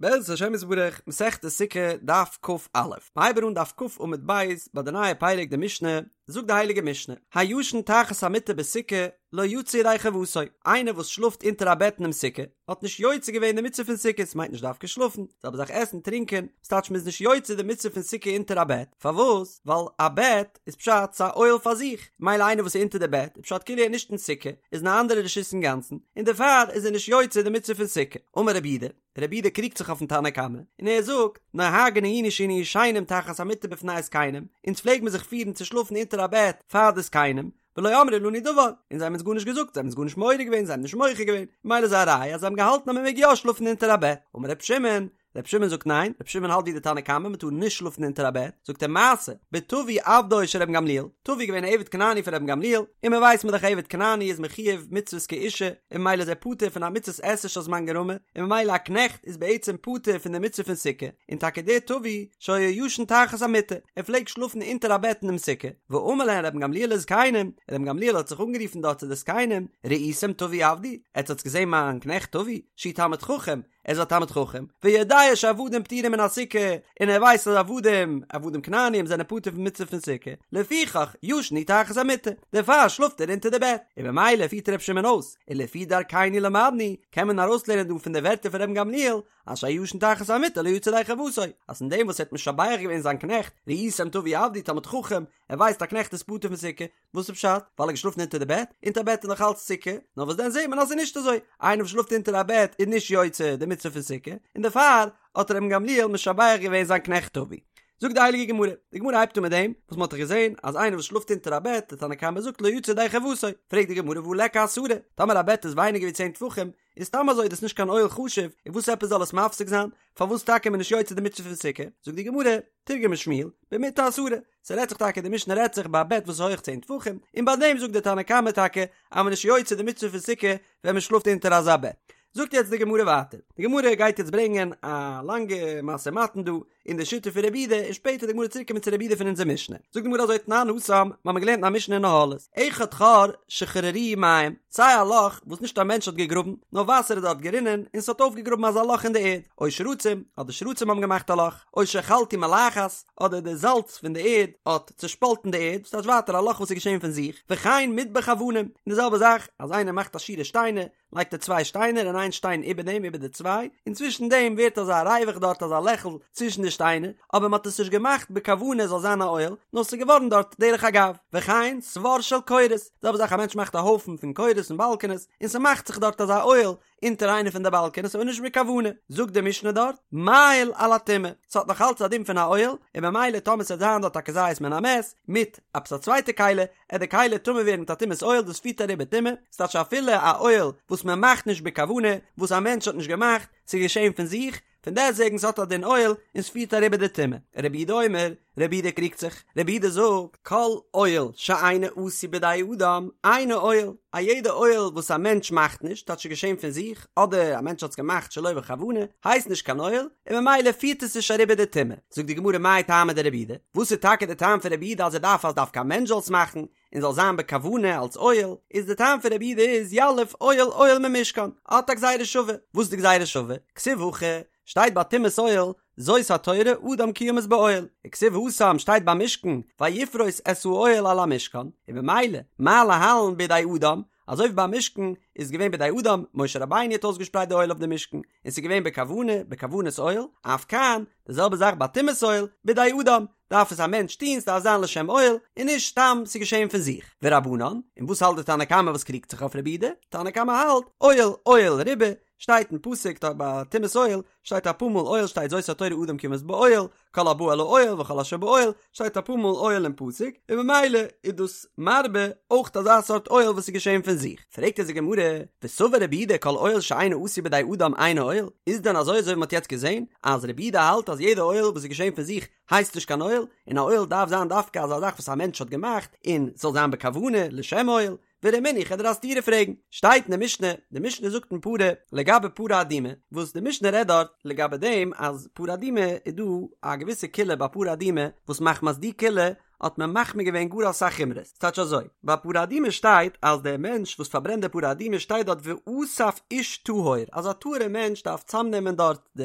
בעזרת השם יתברך, מסכת סוכה, דף כ"א. מ'הייבן אן דף כ עמוד ב', ביי די נייע פרק די משנה, זאגט די הייליגע משנה, הישן תחת המיטה בסוכה, לא יצא ידי חובתו, איינער וואס שלאפט אונטער א בעט אינעם סוכה, האט נישט יוצא געווען די מצוה פון סוכה, ס'מיינט נישט דווקא שלאפן, זעלבע זאך עסן, טרינקען, ס'טייטש מ'איז נישט יוצא די מצוה פון סוכה אונטער א בעט, פארוואס? ווייל א בעט איז פשט ס'א אוהל פאר זיך, מילא איינער וואס איז אונטער די בעט איז פשט כאילו ער איז נישט אין סוכה, איז אין א אנדערע רשות אינגאנצן, און דערפאר איז ער נישט יוצא די מצוה פון סוכה. אמר רבי יהודה, רבי יהודה קריגט זיך אויפן תנא קמא, און ער זאגט, נוהגין היינו שהיינו ישנים תחת המיטה בפני הזקנים, אונז פלעג מען זיך פירן צו שלאפן אונטער א בעט פאר די זקנים, ולא אמרו לנו דבר, און זיי האבן אונז גארנישט געזאגט, זיי האבן אונז גארנישט מעורר געווען, זיי האבן נישט מוחה געווען, מילא איז א ראיה אז זיי האבן געהאלטן אז מען מעג יא שלאפן אונטער א בעט. אמר רבי שמעון, רבי שמעון זאגט ניין, רבי שמעון האלט ווי די תנא קמא, מען טאר נישט שלאפן אונטער א בעט, זאגט ער מעשה, בטבי עבדו של רבן גמליאל, טבי איז געווען א עבד כנעני פון רבן גמליאל, און מען ווייסט מען דאך עבד כנעני איז מחויב מצוות כאישה, און ממילא איז ער פטור פון א מצות עשה שהזמן גרמא, און ממילא א קנעכט איז בעצם פטור פון די מצוה פון סוכה, און טאקע דער טבי שהיה ישן תחת המיטה, ער פלעגט שלאפן אונטער א בעט אינעם סוכה, ואמר להן רבן גמליאל לזקנים, רבן גמליאל האט זיך אנגערופן דארט צו די זקנים, ראיתם טבי עבדי, עטס האטס געזען מיין קנעכט טבי, שהוא תלמיד חכם, ער איז א תלמיד חכם, ויודע שעבדים פטורים מן הסוכה, און ער ווייסט אז עבדים, עבדים כנעניים זענען פטור פון מצוה פון סוכה, לפיכך ישן הוא תחת המיטה, דערפאר שלאפט ער אונטער די בעט, און ממילא פירט ר' שמעון אויס, ולפי דרכינו למדנו, קען מען ארויסלערנען דא פון די ווערטער פון רבן גמליאל, אז שהישן תחת המיטה לא יצא ידי חובתו, אז פון דעם וואס ער האט משבח געווען זיין קנעכט, ראיתם טבי עבדי תלמיד חכם, ער ווייסט א קנעכט איז פטור פון סוכה, וואס איז פשט? ווייל ער האט געשלאפן אונטער די בעט? אונטער א בעט איז נאך אלץ סוכה, נאר וואס דען זעט מען אז ס'איז נישט אזוי, איינער וואס שלאפט אונטער א בעט איז נישט יוצא די מצוה פון סוכה, און דערפאר האט רבן גמליאל משבח געווען זיין קנעכט טבי. זאגט די הייליגע גמרא, די גמרא הייבט אן מיט דעם וואס מ'האט דאך געזען אז איינער וואס שלאפט אונטער א בעט, די תנא קמא זאגט לא יצא ידי חובתו, פרעגט די גמרא והא ליכא עשרה, טאמער א בעט איז ווייניגער ווי צען טפחים, איז סתם אזוי דאס נישט קיין אוהל חשוב, און וואס עפעס זאל עס מפסיק זיין? פארוואס טאקע איז מען נישט יוצא די מצוה פון סוכה? זאגט די גמרא, תרגמה שמואל, במטה עשרה, ס'רעדט זיך טאקע, די משנה רעדט זיך ביי א בעט וואס איז הויך צען טפחים, און ביי דעם זאגט די תנא קמא טאקע אז מען איז נישט יוצא די מצוה פון סוכה ווען מען שלאפט אונטער אזא בעט. זאגט יעצט די גמרא ווייטער, די גמרא גייט יעצט ברענגען א לאנגע משא ומתן דא אין די שיטה פון רבי יהודה, און שפעטער די גמרא צוריק קומען צו רבי יהודה פון אונזער משנה. זאגט די גמרא אזוי תנן התם, מ'האמיר געלערנט אין א משנה אין אהלות, אחד חור שחררוהו מים, סיי א לאך וואס נישט א מענטש האט געגראבן, נאר וואסער איז דארט גערינען און ס'האט אויפגעגראבן אזא לאך אין די ערד, או שרצים, אדער שרצים האבן געמאכט א לאך, או שחלטו מלחת, אדער די זאלץ פון די ערד האט צעשפאלטן די ערד, ס'טייטש ווייטער א לאך וואס איז געשען פון זיך, וכן מטבח אבנים, און די זעלבע זאך אז איינער מאכט א שורה שטיינער, לייגט ער צוויי שטיינער און איין שטיין איבער דעם איבער די צוויי, און צווישן דעם ווערט אזא ריווח דארט אזא לעכל צווישן די שטיינער, אבער מען האט עס נישט געמאכט בכוונה עס זאל זיין א אוהל, נאר ס'איז געווארן דארט דרך אגב, וכן סבר של קורות, די זעלבע זאך א מענטש מאכט א הויפן פון קורות און באלקענעס, און ס'מאכט זיך דארט אזא אוהל, אונטער איינע פון די באלקענעס אבער נישט בכוונה, זאגט די משנה דארט, מאהיל על הטומאה, ס'האט נאך אלץ א דין פון א אוהל, און במילא טאמער ס'וועט זיין דארט א כזית מן המת, מיט עפעס א צווייטע כלי, עט די כלי טמא ווערן מיט א טומאת אוהל, דאס פירט אריבער טומאה, ס'טייטש אפילו א אוהל וואס מען מאכט נישט בכוונה, וואס א מענטש האט נישט געמאכט, ס'איז געשען פון זיך, פון דעסטוועגן ס'האט א דין אוהל און ס'פירט אריבער די טומאה. רבי יהודה אומר, רבי יהודה קריגט זיך, רבי יהודה זאגט, כל אוהל שאינו עשוי בידי אדם, אינו אוהל, א יעדע אוהל וואס א מענטש מאכט נישט, טייטש ס'איז געשען פון זיך, אדער א מענטש האט עס געמאכט שלא בכוונה, הייסט נישט קיין אוהל, און ממילא פירט עס נישט אריבער די טומאה. זאגט די גמרא מאי טעמא דרבי יהודה, וואס איז טאקע די טעם פון רבי יהודה אז ער דארף אז דווקא א מענטש זאל עס מאכן, און זאל זיין בכוונה אלס אוהל, איז די טעם פון רבי יהודה איז יליף אוהל אוהל ממשכן, האט א גזירה שווה, וואס איז די גזירה שווה? כתיב הכא, שטייט ביי טומאת אוהל, זאת התורה אדם כי ימות באוהל, וכתיב התם שטייט ביי משכן, ויפרוס את האוהל על המשכן, און במילא, מה להלן בידי אדם, אזוי ווי ביי משכן איז געווען בידי אדם, משה רבינו האט אויסגעשפרייט די אוהל אויף די משכן, און ס'איז געווען בכוונה, בכוונת אוהל, אף כאן, די זעלבע זאך ביי טומאת אוהל, בידי אדם, דארף עס א מענטש טון, ס'דארף זיין לשם אוהל, און נישט סתם ס'איז געשען פון זיך. ורבנן, און וואס האלט די תנא קמא וואס קריגט זיך אויף רבי יהודה? תנא קמא האלט, אוהל, אוהל ריבה, שטייט אין פסוק דארט ביי טומאת אוהל, שטייט אפאר מאל אוהל שטייט זאת התורה אדם כי ימות באוהל, כל הבא אל האוהל וכל אשר באוהל, שטייט אפאר מאל אוהל אין פסוק, און ממילא איז דאס מרבה אויך אזא סארט אוהל וואס איז געשען פון זיך. פרעגט אונז די גמרא, וסבר רבי יהודה כל אוהל שאינו עשוי בידי אדם אינו אוהל, איז דען אזוי אזוי ווי מ'האט יעצט געזען אז רבי יהודה האלט אז יעדע אוהל וואס איז געשען פון זיך הייסט נישט קיין אוהל, און א אוהל דארף זיין דווקא אזא זאך וואס א מענטש האט געמאכט און ס'זאל זיין בכוונה לשם אוהל, ורמינהו כ'וועל דיר א סתירה פרעגן, שטייט אין די משנה, די משנה זאגט אין פרה לגבי פרה אדומה, וואס די משנה רעדט דארט לגבי דעם אז פרה אדומה איז דא א געוויסע קולא ביי פרה אדומה וואס מחמת די קולא. האט מען מחמיר געווען גאר אסאך חומרות, ס'טייטש אזוי, ביי פרה אדומה שטייט אז דער מענטש וואס פארברענט די פרה אדומה שטייט דארט ואסף איש טהור, אז א טהור'ע מענטש דארף צאמנעמען דארט די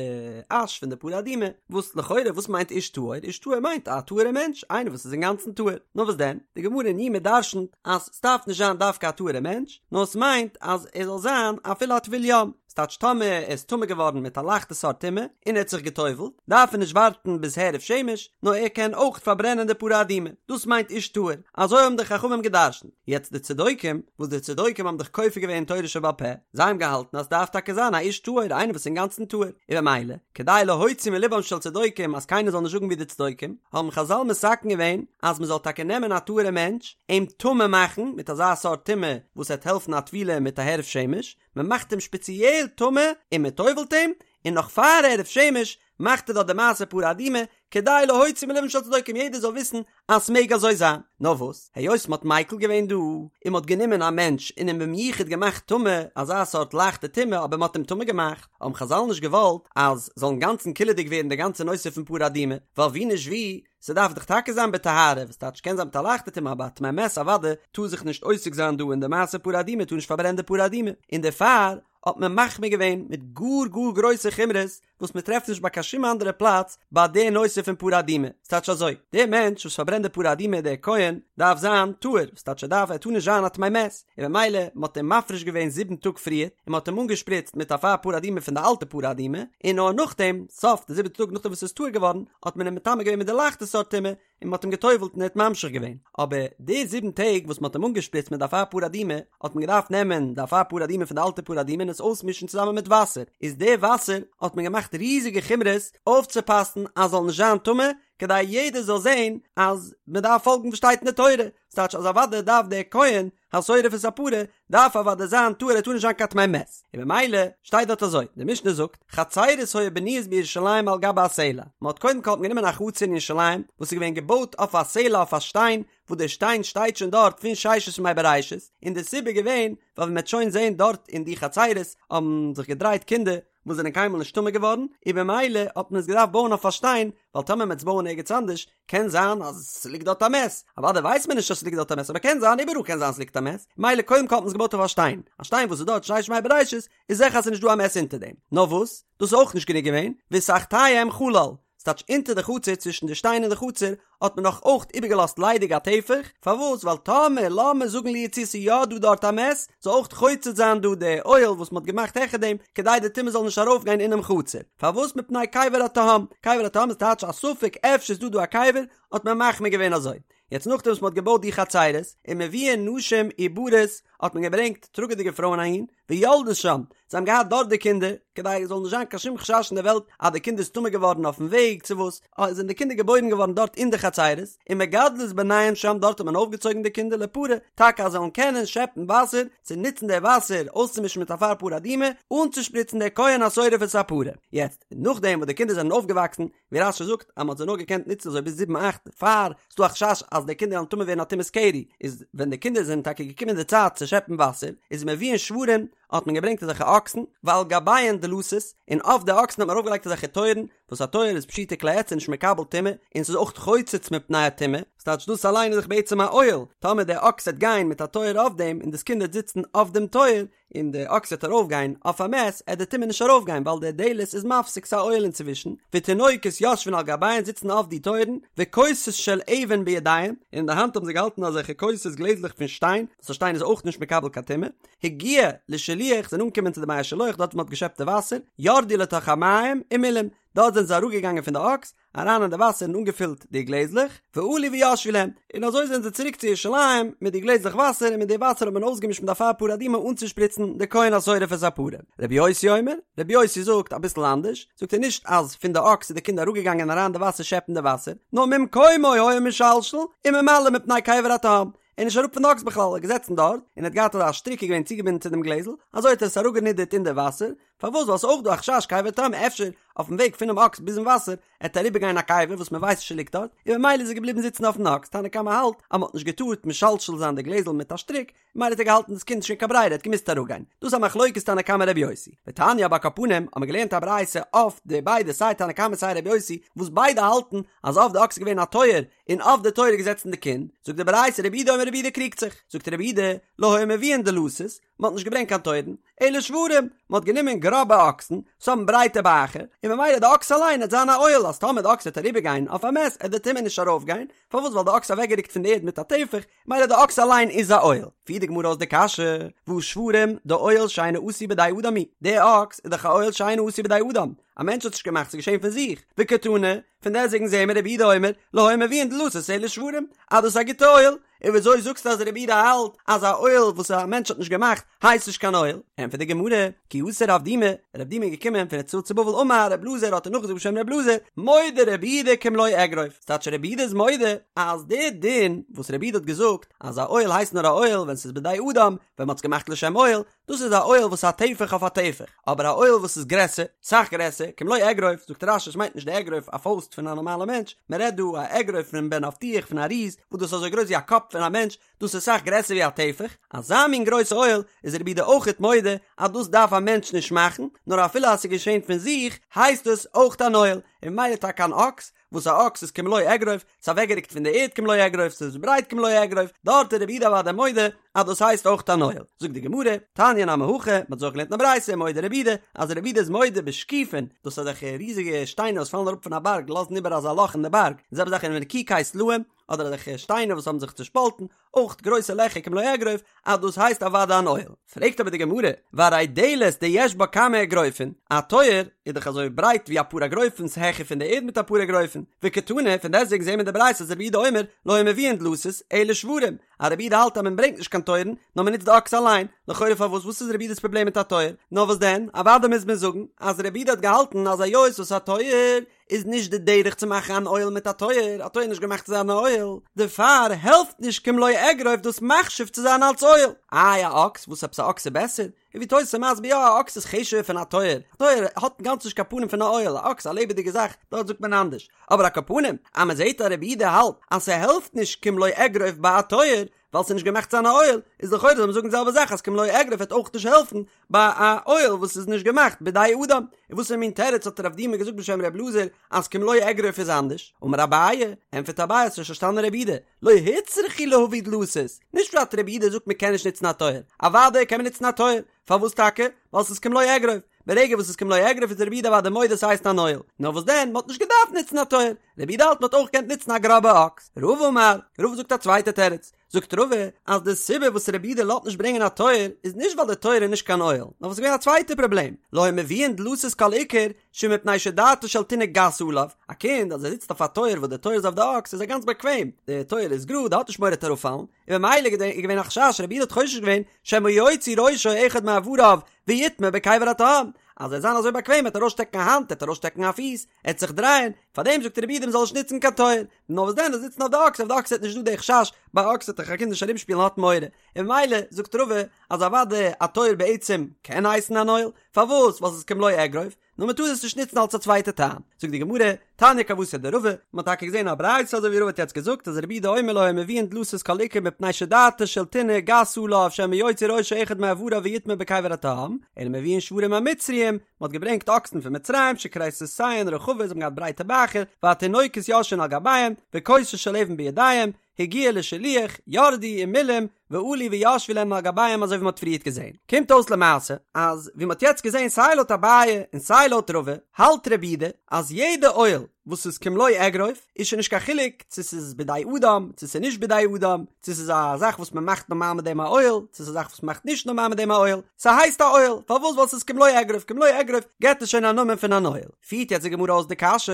אש פון די פרה אדומה, וואס לכאורה וואס מיינט איש טהור? איש טהור מיינט א טהור'ע מענטש, איינער וואס איז אינגאנצן טהור, נאר וואס דען, די גמרא אין יומא דרשנ'ט אז ס'דארף נישט זיין דווקא א טהור'ע מענטש, נאר ס'מיינט אז ער זאל זיין אפילו א טבול יום, ס'טייטש טאמער ער איז טמא געווארן מיט א לייכטע סארט טומאה און ער האט זיך גע'טובל'ט, דארף ער נישט ווארטן ביז הערב שמש, נאר ער קען אויך פארברענען די פרה אדומה. דאס מיינט איש טהור. אזוי האבן די חכמים גע'דרש'נט. יעצט די צדוקים, וואס די צדוקים האבן דאך כופר געווען אין תורה שבעל פה, זיי האבן געהאלטן אז ס'דארף טאקע זיין א איש טהור, איינער וואס איז אינגאנצן טהור. און במילא, כדי להוציא מלבם של צדוקים אז קיינער זאל נישט זאגן ווי די צדוקים, האבן חזל מתקן געווען אז מ'זאל טאקע נעמען א טהור'ע מענטש, אים טמא מאכן מיט אזא סארט טומאה וואס וועט העלפן א טבילה מיט א הערב שמש, מען מאכט אים שפעציעל טמא און מען טובל'ט אים, און נאך פאר הערב שמש מאכט ער דארט די מעשה פרה אדומה, כדי להוציא מלבם של צדוקים יעדער זאל וויסן אז ס'מעג אזוי זיין. נאר וואס, היות מ'האט מיקל געווען דא, און מ'האט גענומען א מענטש און אים במיוחד געמאכט טמא, אזא סארט לייכטע טומאה אבער מ'האט אים טמא געמאכט, האבן חזל נישט געוואלט אז זאל אינגאנצן קילעדיג ווערן די גאנצע נושא פון פרה אדומה, ווייל ווי נישט ווי, ס'דארף דאך טאקע זיין בטהרה, וואס טייטש קען זיין מיט א לייכטע טומאה אבער א טמא מת אוודאי טאר זיך נישט עוסק זיין דא אין די מעשה פרה אדומה טאר נישט פארברענען די פרה אדומה, און דערפאר האט מען מחמיר געווען מיט גאר גאר גרויסע חומרות וואס מען טרעפט נישט ביי קיין שום אנדערע פלאץ ביי די נושא פון פרה אדומה, ס'טייטש אזוי, דער מענטש וואס פארברענט די פרה אדומה דער כהן דארף זיין טהור, וואס טייטש ער דארף ער טאר נישט זיין א טמא מת, און במילא מען האט אים מפריש געווען זיבן טאג פריער, און מען האט אים אנגעשפריצט מיט אפר פרה אדומה פון די אלטע פרה אדומה, און נאר נאכדעם, סוף די זיבעטע טאג נאכדעם וואס ער איז טהור געווארן, האט מען אים מטמא געווען מיט די לייכטע סארט טומאה, און מען האט אים גע'טובל'ט און ער האט ממשיך געווען. אבער די זיבן טעג וואס מען האט אים אנגעשפריצט מיט די אפר פרה אדומה, האט מען געדארפט נעמען די אפר פרה אדומה פון די אלטע פרה אדומה און עס אויסמישן צוזאמען מיט וואסער, איז די וואסער האט מען געמאכט ריזיגע חומרות אויפצופאסן אז זאל נישט זיין טמא, כדי יעדער זאל זען אז מען דארף פאלגן וואס שטייט אין די תורה, ס'טייטש אז אוודאי דארף דער כהן השורף את הפרה דארף אוודאי זיין טהור ער טאר נישט זיין קיין טמא מת, און במילא שטייט דארט אזוי, די משנה זאגט, חצרות היו בנויות בירושלים על גבי הסלע, מען האט קודם כל האט מען גענומען א חצר אין ירושלים וואס איז געווען געבויט אויף א סלע אויף א שטיין, וואס דער שטיין שטייט שוין דארט פון ששת ימי בראשית, און די סיבה איז געווען ווייל ווי מען וועט שוין זען דארט אין די חצרות האבן זיך געדרייט קינדער וואס זענען קיינמאל נישט טמא געווארן, און במילא האט מען עס געדארפט בויען אויף א שטיין, ווייל טאמער מען וועט עס בויען ערגעץ אנדערש, קען זיין אז ס'ליגט דארט א מת, אוודאי ווייסט מען נישט אז ס'ליגט דארט א מת, אבער קען זיין, איבעראל קען זיין ס'ליגט א מת, מילא קודם כל האט מען עס געבויט אויף א שטיין, א שטיין וואס איז דארט ששת ימי בראשית, איז זיכער אז ס'איז נישט דא א מת אונטער דעם, נאר וואס, דאס איז אויך נישט גענוג געווען, ותחתיהם חלל, ס'טייטש אונטער די חצר צווישן די שטיין און די חצר האט מען נאך אויך איבערגעלאזט ליידיג א טפח, פארוואס? ווייל טאמער לאמיר זאגן לו יצויר ס'איז יא דא דארט א מת, זאל אויך חוצץ זיין דא די אוהל וואס מ'האט געמאכט העכער דעם, כדי די טומאה זאל נישט ארויפגיין אינעם חצר. פארוואס? מפני קבר התהום. קבר התהום איז טייטש א ספק אפשר איז דא דא א קבר, האט מען מחמיר געווען אזוי. יעצט נאכדעם וואס מ'האט געבויט די חצרות, ומביאין נשים עוברות, האט מען געברענגט טראגעדיגע פרויען אהין, ויולדות שם, זיי האבן געהאט דארט די קינדער, כדי עס זאל נישט זיין קיין שום חשש אין די וועלט אז די קינד איז טמא געווארן אויפן וועג צו וואס, זענען די קינדער געבוירן געווארן דארט אין די חצרות, ומגדלות בניהן שם דארט האט מען אויפגעצויגן די קינדער לפרה, טאקע אז זיי זאלן קענען שעפן וואסער, צו נוצן די וואסער אויסצומישן מיט אפר פרה אדומה, אנצושפריצן די כהן השורף את הפרה. יעצט, נאכדעם וואס די קינדער זענען אויפגעוואקסן, ווי רש"י זאגט אז מען האט זיי נאר געקענט נוצן אזוי ביז זיבן אכט פאר ס'דא א חשש אז די קינדער וועלן טמא ווערן א טומאת קרי, איז ווען די קינדער זענען טאקע געקומען די צייט צו שעפן וואסער, איז מביאין שוורים, האט מען געברענגט אזעלכע אקסן, ועל גביהן דלתות, און אויף די אקסן האט מען ארויפגעלייגט אזעלכע טויערן, וואס א טויער איז פשוטי כלי עץ און נישט מקבל טומאה, און ס'איז אויך חוצץ מפני הטומאה, ס'טייטש דאס אליין איז דאך בעצם א אוהל, טאמער דער אקס וועט גיין מיט א טויער אויף דעם און דאס קינד וועט זיצן אויף דעם טויער, און די אקס וועט ארויף גיין אויף א מת, עט די טומאה נישט ארויף גיין ווייל די דלת איז מפסיק ס'א אוהל אינצווישן, ותינוקות יושבין על גביהן זיצן אויף די טויערן, וכוסות של אבן בידיהם, און אין די האנט האבן זיי געהאלטן אזעלכע כוסות גלעזלעך פון שטיין, וואס א שטיין איז אויך נישט מקבל קיין טומאה, הגיעו לשילוח זענען אנגעקומען צו די מי השילוח דארט וואו מ'האט געשעפט די וואסער, ירדו לתוך המים ומילאום, דארט זענען זיי אראפגעגאנגען פון די אקס, אריין אין די וואסער און אנגעפילט די גלעזלעך, ועלו וישבו להם, און אזוי זענען זיי צוריק צו ירושלים מיט די גלעזלעך וואסער און מיט די וואסער האט מען אויסגעמישט מיט אפר פרה אדומה אנצושפריצן די כהן השורף את הפרה. רבי יוסי אומר, רבי יוסי זאגט אביסל אנדערש, זאגט ער נישט אז פון די אקס איז די קינד אראפגעגאנגען אריין אין די וואסער שעפן די וואסער, נאר ממקומו היה משלשל וממלא מפני קבר התהום, ער איז נישט אראפ פון די אקס בכלל, ער איז געזעצן דארט, און ער האט געהאט אזא שטריק איז געווען צוגעבינדן צו דעם גלעזל, אזוי האט ער עס אראפגענידערט אין די וואסער, פארוואס ווייל ס'איז אויך דא א חשש קבר תהום אפשר אויפן וועג פונעם אקס ביזן וואסער עט אריבער גיין א קבר וואס מען ווייסט נישט ליגט דארט, און ממילא איז ער געבליבן זיצן אויפן אקס, תנא קמא האלט אז מען האט נישט געטארט משלשל זיין די גלעזל מיט א שטריק, ממילא האט ער געהאלטן דאס קינד נישט קיין ברירה ער האט געמוזט אראפגיין, דאס איז א מחלוקת תנא קמא רבי יוסי, ותניא אבער על כל פנים האט מען געלערנט א ברייתא אויף די ביידע סיי תנא קמא סיי רבי יוסי וואס ביידע האלטן אז אויף די אקס איז געווען א טויער און אויף די טויער איז געזעצן די קינד, זאגט די ברייתא רבי יהודה אומר רבי יהודה קריגט זיך, זאגט רבי יהודה לא היו מביאין דלתות, מען האט נישט געברענגט קיין טויערן, אלא שוורים, מען האט גענומען גראבע אקסן, וואס האבן ברייטע בייכער, און ממילא די אקס אליין עט זיין א אוהל, אז טאמער די אקס וועט אריבער גיין אויף א מת, עט די טומאה נישט ארויף גיין, פארוואס ווייל די אקס איז אוועקגעריקט פון די ערד מיט א טפח, ממילא די אקס אליין איז א אוהל. פירט די גמרא אויס די קשיא, והא שוורים, דאוהל שאינו עשוי בידי אדם הוא, די אקס איז דאך א אוהל שאינו עשוי בידי אדם, א מענטש האט נישט געמאכט, ס'איז געשען פון זיך, וקתני, פון דעסטוועגן זעהן מיר רבי יהודה אומר, לא היו מביאין דלתות אלא שוורים, אז דאס איז א גוטע אוהל, און וויאזוי זאגסטו אז רבי יהודה האלט אז א אוהל וואס א מענטש האט נישט געמאכט הייסט נישט קיין אוהל? ענטפערט די גמרא, כי אתא רב דימי, רב דימי איז געקומען פון ארץ ישראל צו בבל אמר רב אלעזר האט ער נאכגעזאגט בשם רב אלעזר, מודה רבי יהודה כמלא אגרוף, ס'טייטש רבי יהודה איז מודה אז די דין וואס רבי יהודה האט געזאגט אז א אוהל הייסט נאר א אוהל ווען ס'איז בידי אדם, ווען מ'האט עס געמאכט לשם אוהל, דאס איז א אוהל וואס איז א טפח אויף א טפח, אבער א אוהל וואס איז גרעסער, סאך גרעסער, כמלא אגרוף, זאגט רש"י עס מיינט נישט די אגרוף א פויסט פון א נארמאלע מענטש, מען רעדט דא א אגרוף פון בן אבטיח פון א ריז, וואס דאס איז אזוי גרויס ווי א קאפ פון א מענטש, דאס איז סאך גרעסער ווי א טפח, אזא מין גרויסע אוהל איז רבי יהודה אויכעט מודה אז דאס דארף א מענטש נישט מאכן, נאר אפילו אז ס'איז געשען פון זיך הייסט עס אויכט אן אוהל, און ממילא טאקע אן אקס, וואס א אקס איז כמלוא אגרוף, ס'איז אוועקגעריקט פון די ערד כמלוא אגרוף, ס'איז ברייט כמלוא אגרוף, דארט איז רבי יהודה אוודאי מודה אז דאס הייסט אויך אן אוהל. זאגט די גמרא, תניא נמי הכי, מ'האט אזוי אויך געלערנט אין א ברייתא, מודה רבי יהודה, אז רבי יהודה איז מודה בשקיפין, דאס איז אזעלכע ריזיגע שטיינער וואס פאלן אראפ פון א בארג לאזן איבער אזא לאך אין די בארג, די זעלבע זאך ונקיקי סלעים, אדער אזעלכע שטיינער וואס האבן זיך צושפאלטן, אויך גרויסע לעכער כמלוא אגרוף, אז דאס הייסט אוודאי אן אוהל. פרעגט אבער די גמרא, והרי דלת דיש בה כמה אגרופין, א טויער איז דאך אזוי ברייט ווי אפאר אגרופין ס'העכער פון די ערד מיט אפאר אגרופין, וקתני, פון דעסטוועגן זעהן מיר אין די ברייתא אז רבי יהודה אומר, לא היו מביאין דלתות, אלא שוורים, אז רבי יהודה האלט אז מען ברענגט נישט קיין טויערן, נאר מען נוצט די אקס אליין, לכאורה פארוואס וואס איז רבי יהודה'ס פראבלעם מיט א טויער? נאר וואס דען, אוודאי מוז מען זאגן אז רבי יהודה האט געהאלטן אז היות וואס א טויער איז נישט די דרך צו מאכן אן אוהל מיט א טויער, א טויער איז נישט געמאכט צו זיין א אוהל, דערפאר העלפט נישט כמלוא אגרוף דאס מחשיב צו זיין אלס אוהל. איי א אקס, וואס עפעס א אקס איז בעסער? און ווי תוס' איז מסביר יא א אקס איז חשוב'ער פון א טויער, א טויער האט אינגאנצן נישט קיין פנים פון א אוהל, א אקס א לעבעדיגע זאך, דארט זאגט מען אנדערש, אבער על כל פנים אז מען זעט אז רבי יהודה האלט אז ס'העלפט נישט כמלוא אגרוף ביי א טויער, ווייל ס'איז נישט געמאכט צו זיין א אוהל, איז לכאורה זאל מען זאגן די זעלבע זאך אז כמלוא אגרוף וועט אויך נישט העלפן ביי א אוהל וואס איז נישט געמאכט בידי אדם. און וואסערע מין תירוץ האט רב דימי געזאגט בשם ר' אלעזר אז כמלוא אגרוף איז אנדערש? אמר אביי, ענטפערט אביי האסט נישט פארשטאנען רבי יהודה, לא הוצרכו להביא דלתות, נישט פשט רבי יהודה זאגט מען קען נישט נוצן א טויער, אוודאי קען מען נוצן א טויער, פארוואס טאקע? ווייל ס'איז כמלוא אגרוף, ברגע וואס ס'איז כמלוא אגרוף איז רבי יהודה אוודאי מודה ס'הייסט אן אוהל, נאר וואס דען מ'האט נישט געדארפט נוצן א טויער, רבי יהודה האלט מ'האט אויך געקענט נוצן א גראבע אקס. רבא אמר, רבא זאגט א צווייטע תירוץ, זאגט רבא אז די סיבה וואס רבי יהודה לאזט נישט ברענגען א טויער איז נישט ווייל די טויער איז נישט קיין אוהל, נאר וואס איז געווען א צווייטע פראבלעם, לא היו מביאין דלתות כל עיקר שמפני שדעתו של תינוק גסה עליו, א קינד אז ער זיצט אויף א טויער וואס די טויער איז אויף די אקס איז ער גאנץ באקוועם, די טויער איז גראד ער האט נישט מורא ער וועט אראפפאלן, און ממילא איז געווען א חשש רבי יהודה האט חושש געווען שמא יוציא ראשו אחד מאבריו ויטמא בקבר התהום, אז ער וועט זיין אזוי באקוועם ער וועט ארויסשטעקן א האנט ער וועט ארויסשטעקן א פיס, ער וועט זיך דרייען, פארדעם זאגט רבי יהודה מ'זאל נישט נוצן קיין טויער, נאר וואס דען זאל זיצן אויף די אקס, אויף די אקס איז נישט דא די חשש, ביי אקס וועט דאך א קינד נישט ארומשפילן האט מורא, און ממילא זאגט רבא אז אוודאי א טויער בעצם קען הייסן אן אוהל, פארוואס? ווייל ס'איז כמלוא אגרוף, נאר מ'טאר עס נישט נוצן אלס א צווייטע טעם. זאגט די גמרא, תניא כוותיה דרבא, מ'האט טאקע געזען א ברייתא אזוי ווי רבא האט יעצט געזאגט אז רבי יהודה אומר לא היו מביאין דלתות כל עיקר מפני שדעתו של תינוק גסה עליו שמא יוציא ראשו אחד מאבריו ויטמא בקבר התהום, אלא מביאין שוורים המצריים, מ'האט געברענגט אקסן פון מצרים שכריסותיהן רחבות זיי האבן געהאט ברייטע בייכער והתינוקות יושבין על גביהם וכוסות של אבן בידיהם הגיעו לשילוח ירדו ומילאום ועלו וישבו להם על גביהם אזוי ווי מ'האט פריערט געזען. קומט אויס למעשה אז ווי מ'האט יעצט געזען סיי לויט אביי און סיי לויט רבא האלט רבי יהודה אז יעדע אוהל וואס איז כמלוא אגרוף איז שוין נישט קיין חילוק צו ס'איז בידי אדם צו ס'איז נישט בידי אדם צו ס'איז א זאך וואס מ'מאכט נארמאל מיט דעם א אוהל צו ס'איז א זאך וואס מ'מאכט נישט נארמאל מיט דעם א אוהל ס'הייסט א אוהל פארוואס ווייל ס'איז כמלוא אגרוף כמלוא אגרוף געבט עס שוין א נאמען פון אן אוהל פירט יעצט די גמרא אויס די קשיא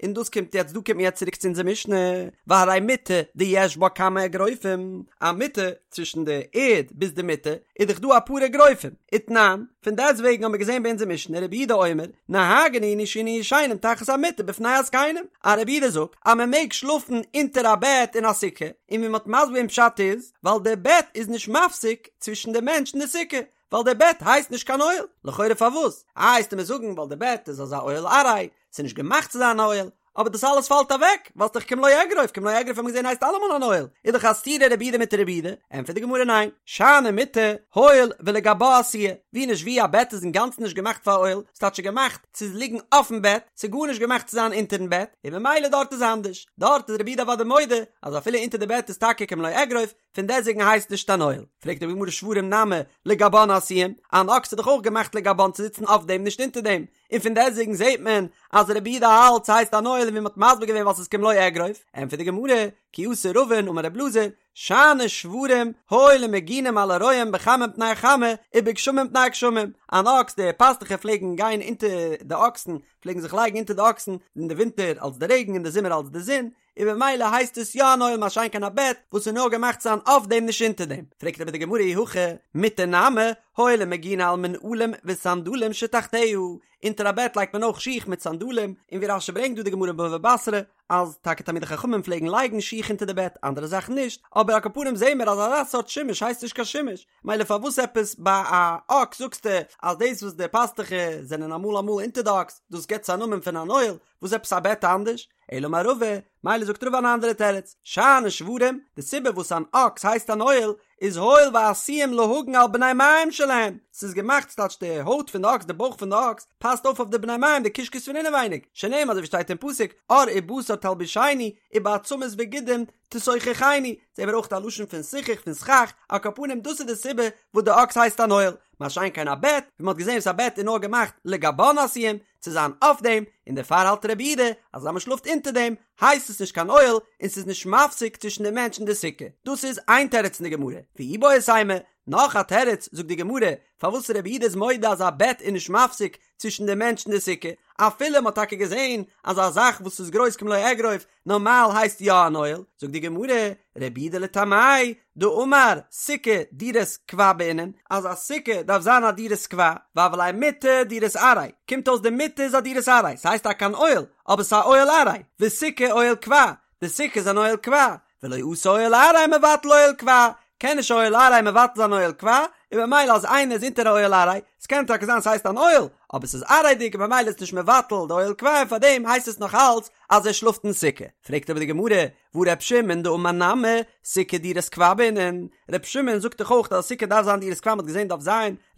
און דאס קומט יעצט דא קומט מען יעצט צוריק צו אונזער משנה, והרי מיטה דיש בה כמה אגרופים, א מיטה צווישן די ערד ביז די מיטה איז דאך דא אפאר אגרופים, ותנן, פון דעסט וועגן האבן מיר געזען ביי אונזער משנה רבי יהודה אומר, נוהגין היינו שהיינו ישנים תחת המיטה בפני הזקנים, אז רבי יהודה זאגט אז מען מעג שלאפן אונטער א בעט אין א סוכה, און ווי מען האט מסביר געווען פשט איז, ווייל די בעט איז נישט מפסיק צווישן די מענטש און די סוכה. ווייל די בעט הייסט נישט קיין אוהל, לכאורה פארוואס? איי וועסטו מיר זאגן ווייל די בעט איז אזא אוהל עראי, ס'איז נישט געמאכט צו זיין א אוהל, אבער דאס אלעס פאלט אוועק, ווייל ס'דאך כמלוא אגרוף, כמלוא אגרוף האט מען געזען הייסט אלעמאל אן אוהל, איז דאך א סתירה רבי יהודה מיט רבי יהודה, ענטפערט די גמרא ניין, שאני מיטה, הואיל ולגבה עשויה, ווי נישט ווי א בעט איז אינגאנצן נישט געמאכט פאר אוהל, ס'טייטש ס'איז געמאכט צו ליגן אויפן בעט, ס'איז גארנישט געמאכט צו זיין אונטערן בעט, און ממילא דארט איז אנדערש, דארט איז רבי יהודה אוודאי מודה אז אפילו אונטער די בעט איז טאקע כמלוא אגרוף, פון דעסוועגן הייסט נישט אן אוהל. פרעגט די גמרא שוורים נמי לגבן עשויים, אן אקס איז דאך אויך געמאכט לגבן צו זיצן אויף דעם נישט אונטער דעם, און פון דעסוועגן זעט מען אז רבי יהודה האלט ס'הייסט אן אוהל ווי מ'האט מסביר געווען ווייל ס'איז כמלוא אגרוף, ענטפערט די גמרא, כי אתא רבין אמר רב אלעזר, שאני שוורים הואיל ומגינים על הרועים בחמה מפני החמה ובגשמים מפני הגשמים, אן אקס די פאסטוכער פלעגן גיין אונטער די אקסן פלעגן זיך לייגן אונטער די אקסן אין די ווינטער אלס די רעגן אין די זומער אלס די זון, און במילא הייסט עס יא אן אוהל מה שאין כן א בעט וואס איז נאר געמאכט צו זיין אויף דעם נישט אונטער דעם, פרעגט אבער די גמרא אי הכי מיטה נמי הואיל ומגינא על מנעלים וסנדלים שתחתיה, אונטער א בעט לייגט מען אויך שיך מיט סנדלים, און ווי רש"י ברענגט דא די גמרא בבא בתרא אז טאקע תלמידי חכמים פלעגן לייגן שיך אונטער די בעט אנדערע זאכן נישט, אבער על כל פנים זעהן מיר אז אזא סארט שימוש הייסט נישט קיין שימוש, מילא פארוואס עפעס ביי א אקס זאגסטו אז דאס וואס די פאסטוכער זענען אמאל אמאל אונטער די אקס דאס געבט עס א נאמען פון אן אוהל, וואס עפעס א בעט אנדערש? אלא אמר רבא, מילא זאגט רבא אן אנדערע תירוץ, שאני שוורים, די סיבה וואס אן אקס הייסט אן אוהל, איז הואיל ועשויים להגן על בני מעיים שלהם, ס'איז געמאכט ס'טייטש די הויט פון די אקס, די בויך פון די אקס, פאסט אויף אויף די בני מעיים די קישקעס פון אינעווייניג, שנאמר אזוי ווי שטייט אין פסוק, עור ובשר תלבישני, ובעצמות וגידים תסוככני, זעהן מיר אויך א לשון פון סיכוך פון סכך, על כל פנים דאס איז די סיבה וואס די אקס הייסט אן אוהל, מה שאין כן א בעט, ווי מ'האט געזעהן וואס א בעט איז נאר געמאכט לגבן עשויים, צו זיין אויף דעם, און דערפאר האלט רבי יהודה אז אז מען שלאפט אונטער דעם הייסט עס נישט קיין אוהל און ס'איז נישט מפסיק צווישן די מענטש און די סוכה. דאס איז איין תירוץ אין די גמרא. ואיבעית אימא, נאך א תירוץ זאגט די גמרא פארוואס רבי יהודה איז מודה אז א בעט איז נישט מפסיק צווישן די מענטש און די סוכה, אפילו מען האט טאקע געזען אז א זאך וואס איז גרויס כמלוא אגרוף נארמאל הייסט יא אן אוהל, זאגט די גמרא, רבי יהודה לטעמיה דאמר סוכה דירת קבע בעינן, אז א סוכה דארף זיין א דירת קבע, והוה ליה מיטה דירת עראי, קומט אויס די מיטה איז א דירת עראי, ס'הייסט טאקע אן אוהל, אבער ס'איז א אוהל עראי, וסוכה אוהל קבע, די סוכה איז אן אוהל קבע, ולא אתי אוהל עראי מבטל אוהל קבע, קען נישט אוהל עראי מבטל זיין אוהל קבע, און במילא אז איינער איז אונטער א אוהל עראי, ס'קען טאקע זיין ס'הייסט אן אוהל, אבער ס'איז עראי'דיג און במילא איז נישט מבטל די אוהל קבע און פארדעם הייסט עס נאך אלץ אז ער שלאפט אין סוכה. פרעגט אבער די גמרא, והא ר' שמעון דאמר נמי, סוכה דירת קבע בעינן, ר' שמעון זאגט דאך אויך אז א סוכה דארף זיין דירת קבע מ'האט געזען דף ז,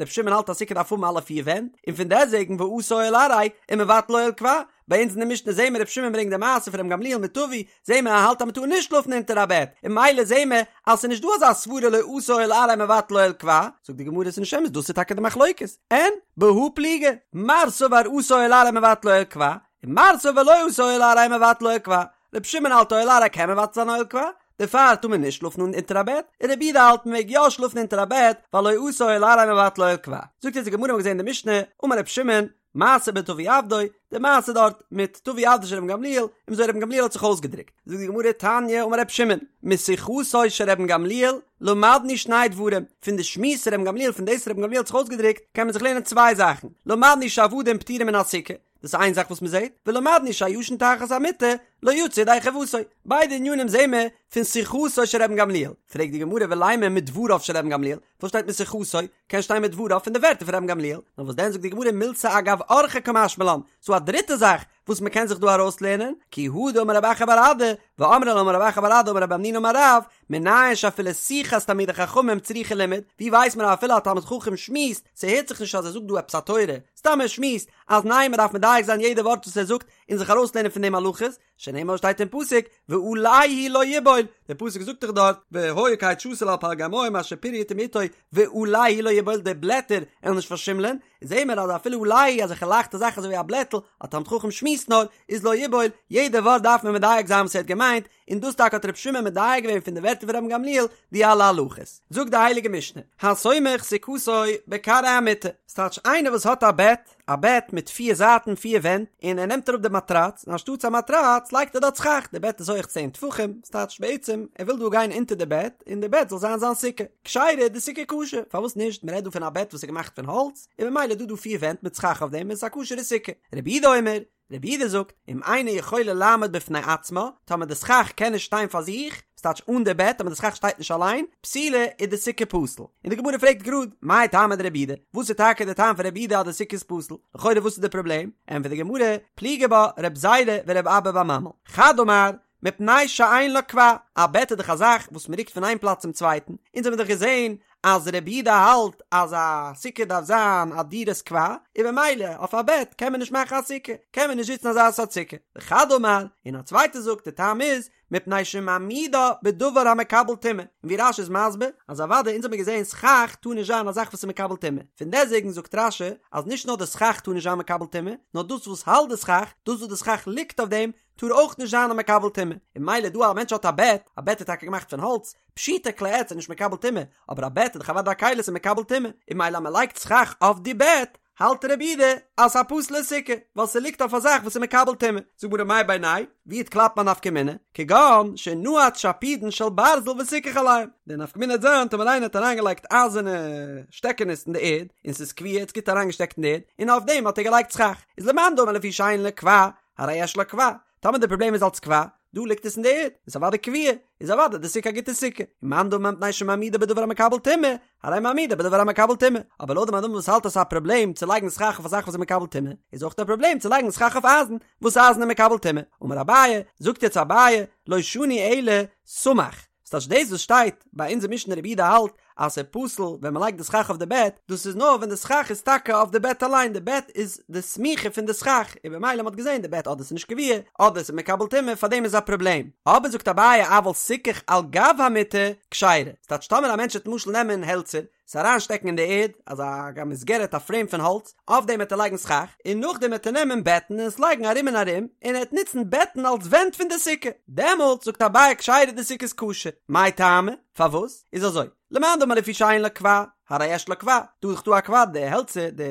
ר' שמעון האלט אז סוכה דארף האבן אלע פיר ווענט, און פון דעסוועגן ואתא אוהל עראי ומבטל אוהל קבע, ביי אונז אין די משנה זעהן מיר ר' שמעון ברענגט די מעשה פון ר' גמליאל מיט טבי, זעהן מיר ער האלט אז מ'טאר נישט שלאפן אונטער א בעט, און ממילא זעהן מיר אז ס'איז נישט דא אזא סברא לא אתא אוהל עראי מבטל אוהל קבע, זאגט די גמרא ס'איז נישט אמת דאס איז טאקע די מחלוקת, אין בהא פליגי, מר סבר אתא אוהל עראי מבטל אוהל קבע, און מר סבר לא אתא אוהל עראי מבטל אוהל קבע, ר' שמעון האלט אוהל עראי קען מבטל זיין אוהל קבע, דערפאר טאר מען נישט שלאפן אונטער א בעט, און רבי יהודה האלט מען מעג יא שלאפן אונטער א בעט, ווייל לא אתא אוהל עראי מבטל אוהל קבע. זאגט אונז די גמרא מ'האט געזעהן אין די משנה, אמר ר' שמעון, מעשה בטבי עבדו, די מעשה דארט מיט טבי עבדו של רבן גמליאל, און וויאזוי רבן גמליאל האט זיך אויסגעדרוקט. זאגט די גמרא תניא אמר ר' שמעון, משיחתו של רבן גמליאל למדנו שני דברים, פון די שמועס רבן גמליאל פון דאס רבן גמליאל האט זיך אויסגעדרוקט קען מען זיך לערנען צוויי זאכן, למדנו שעבדים פטורים מן הסוכה, דאס איז איין זאך וואס מען זעט, ולמדנו שהישן תחת המיטה לא יצא ידי חובתו, ביידע ענינים זעהן מיר פון שיחתו של רבן גמליאל, פרעגט די גמרא ולימא מדבריו של רבן גמליאל, וואס שטייט משיחתו, קען שטיין מדבריו פון די ווערטער פון רבן גמליאל, נאר וואס דען זאגט די גמרא מילתא אגב אורחא קמשמע לן, ס'דא א דריטע זאך וואס מען קען זיך דא ארויסלערנען, כי הא דאמר רב אחא בר אדא, ואמרי לה אמר רב אחא בר אדא אמר רב המנונא אמר רב, מנין שאפילו שיחת תלמידי חכמים צריכה לימוד, ווי ווייסט מען אז אפילו א תלמיד חכם שמועסט, ס'הערט זיך נישט אז ער זאגט דא עפעס א תורה, סתם ער שמועסט, אז ניין מ'דארף מדייק זיין יעדע ווארט וואס ער זאגט און זיך ארויסלערנען פון דעם הלכות, שנאמר שטייט אין פסוק ועלהו לא יבול, דער פסוק זאגט דאך דארט והיה כעץ שתול על פלגי מים אשר פריו יתן בעתו ועלהו לא יבול די בלעטער עלן נישט פארשימלען, זעהן מיר אז אפילו עלהו אזעלכע לייכטע זאכן אזוי ווי א בלעטל, א תלמיד חכם שמועסט נאר, איז לא יבול, יעדע ווארט דארף מען מדייק זיין וואס ער האט געמיינט, און דאס טאקע האט רבי שמעון מדייק געווען פון די ווערטער פון רבן גמליאל די אלע הלכות. זאגט די הייליגע משנה, הסומך סוכתו בכרעי המיטה, ס'טייטש איינער וואס האט א בעט, א בעט מיט פיר זייטן פיר ווענט, און ער נעמט אראפ די מאטראץ, און אנשטאטס א מאטראץ לייגט ער דארט סכך, די בעט איז הויעך צען טפחים, ס'טייטש בעצם ער וויל דא גיין אונטער די בעט, און די בעט זאל זיין זיין סוכה. כשרה, די סוכה כשר, פארוואס נישט, מ'רעדט דא פון א בעט וואס איז געמאכט פון האלץ, און ממילא איז דא דא פיר ווענט מיט סכך אויף דעם, און ס'איז א כשר'ע סוכה. רבי יהודה אומר, רבי יהודה זאגט, אם אינה יכולה לעמוד בפני עצמה, טאמער די סכך קען נישט שטיין פאר זיך, ס'טייטש אן די בעט, אבער די סכך שטייט נישט אליין, פסולה איז די סוכה פסול. און די גמרא פרעגט גראד, מאי טעמא דרבי יהודה, וואס איז טאקע די טעם פון רבי יהודה אז די סוכה איז פסול? לכאורה וואס איז די פראבלעם? ענטפערט די גמרא, פליגי בה רב זירא ורב אבא בר ממל, חד אמר, מפני שאין לה קבע, א בעט איז דאך א זאך וואס מען רוקט פון איין פלאץ צום צווייטן, אונז האבן דאך געזען אז רבי יהודה האלט אז א סוכה דארף זיין א דירת קבע, און במילא אויף א בעט קען מען נישט מאכן א סוכה, קען מען נישט זיצן אזא סארט סוכה. וחד אמר, און א צווייטער זאגט די טעם איז, מפני שמעמידה בדבר המקבל טומאה, און ווי רש"י איז מסביר, אז אוודאי אונז האבן געזען סכך טאר נישט זיין א זאך וואס איז מקבל טומאה, פון דעסטוועגן זאגט רש"י אז נישט נאר די סכך טאר נישט זיין מקבל טומאה, נאר דאס וואס האלט די סכך, דאס וואס די סכך ליגט אויף דעם, טאר אויך נישט זיין א מקבל טומאה, און ממילא דא א מענטש האט א בעט, א בעט איז טאקע געמאכט פון האלץ, פשיטא כלי עץ איז נישט מקבל טומאה, אבער א בעט איז דאך אוודאי א כלי ס'איז מקבל טומאה, און ממילא אז מ'לייגט סכך אויף די בעט, האלט רבי יהודה אז ס'איז א פסול'ע סוכה, ווייל ס'ליגט אויף א זאך וואס איז מקבל טומאה. זאגט גמרא מאי בינייהו ווי וועט קלאפן א נפקא מינה, כגון שנעץ שפודין של ברזל וסיכך עליהם, די נפקא מינה וועט זיין טאמער איינער האט אריינגעלייגט אייזערנע שטעקענעס אין די ערד, און ס'איז קבוע, ס'איז גוט אריינגעשטעקט אין די ערד, און אויף דעם האט ער געלייגט סכך, איז למאן דאמר לפי שאין לה קבע, הרי יש לה קבע, טאמער די פראבלעם איז אלץ קבע, דא ליגט עס אין די ערד, איז אוודאי קבוע, איז אוודאי די סוכה א גוטע סוכה, ומאן דאמר מפני שמעמידה בדבר המקבל טומאה, הרי מעמידה בדבר המקבל טומאה, אבער לויט די מאן דאמר וואס האלט אז ס'איז א פראבלעם צו לייגן סכך אויף א זאך וואס איז מקבל טומאה, איז אויך א פראבלעם צו לייגן סכך אויף אייזן, וואס אייזן איז מקבל טומאה. אמר אביי, זאגט יעצט אביי, לא שנו אלא סמך, ס'טייטש דאס וואס שטייט ביי אונזער משנה רבי יהודה האלט אז ס'איז פסול ווען מ'לייגט די סכך אויף די בעט, דאס איז נאר ווען די סכך איז טאקע אויף די בעט אליין, די בעט איז די סמיכה פון די סכך, און במילא מ'האט געזען די בעט אדער ס'איז נישט קבוע, אדער ס'איז מקבל טומאה, פארדעם איז א פראבלעם. אבער זאגט אביי אבל סיכך על גב המיטה כשרה, ס'טייטש טאמער א מענטש וועט למשל נעמען העלצער, עס אריינשטעקן אין די ערד, אזא א מסגרת א פרעים פון האלץ, אויף דעם וועט ער לייגן סכך, און נאכדעם וועט ער נעמען בעטן און עס לייגן ארום און ארום, און ער וועט נוצן בעטן אלס ווענט פון די סוכה, דעמאלטס זאגט אביי כשרה די סוכה איז כשר, מאי טעמא? פארוואס? איז אזוי, למאן דאמר לפי שאין לה קבע, הרי יש לה קבע, דא איז דאך דא א קבע, די העלצער, די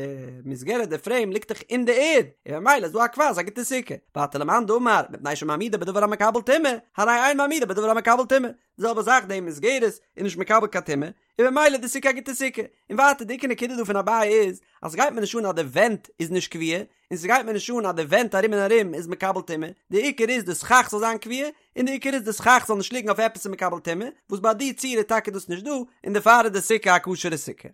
מסגרת, די פרעים ליגט דאך אין די ערד, און ממילא איז דא א קבע, איז א גוטע סוכה, ווייטער למאן דאמר, מפני שמעמידה בדבר המקבל טומאה, הרי אין מעמידה בדבר המקבל טומאה, די זעלבע זאך די מסגרת איז נישט מקבל קיין טומאה, און במילא די סוכה א גוטע סוכה. און ווייטער די עיקר נקודה דא פון אביי איז, אז ס'גייט מיר נישט אן אז די ווענט איז נישט קבוע, און ס'גייט מיר נישט אן אז די ווענט ארום און ארום איז מקבל טומאה, די עיקר איז די סכך זאל זיין קבוע, און די עיקר איז די סכך זאל נישט ליגן אויף עפעס איז מקבל טומאה, וואס ביי די ציור איז טאקע דאס נישט דא, און דערפאר איז די סוכה א כשר'ע סוכה.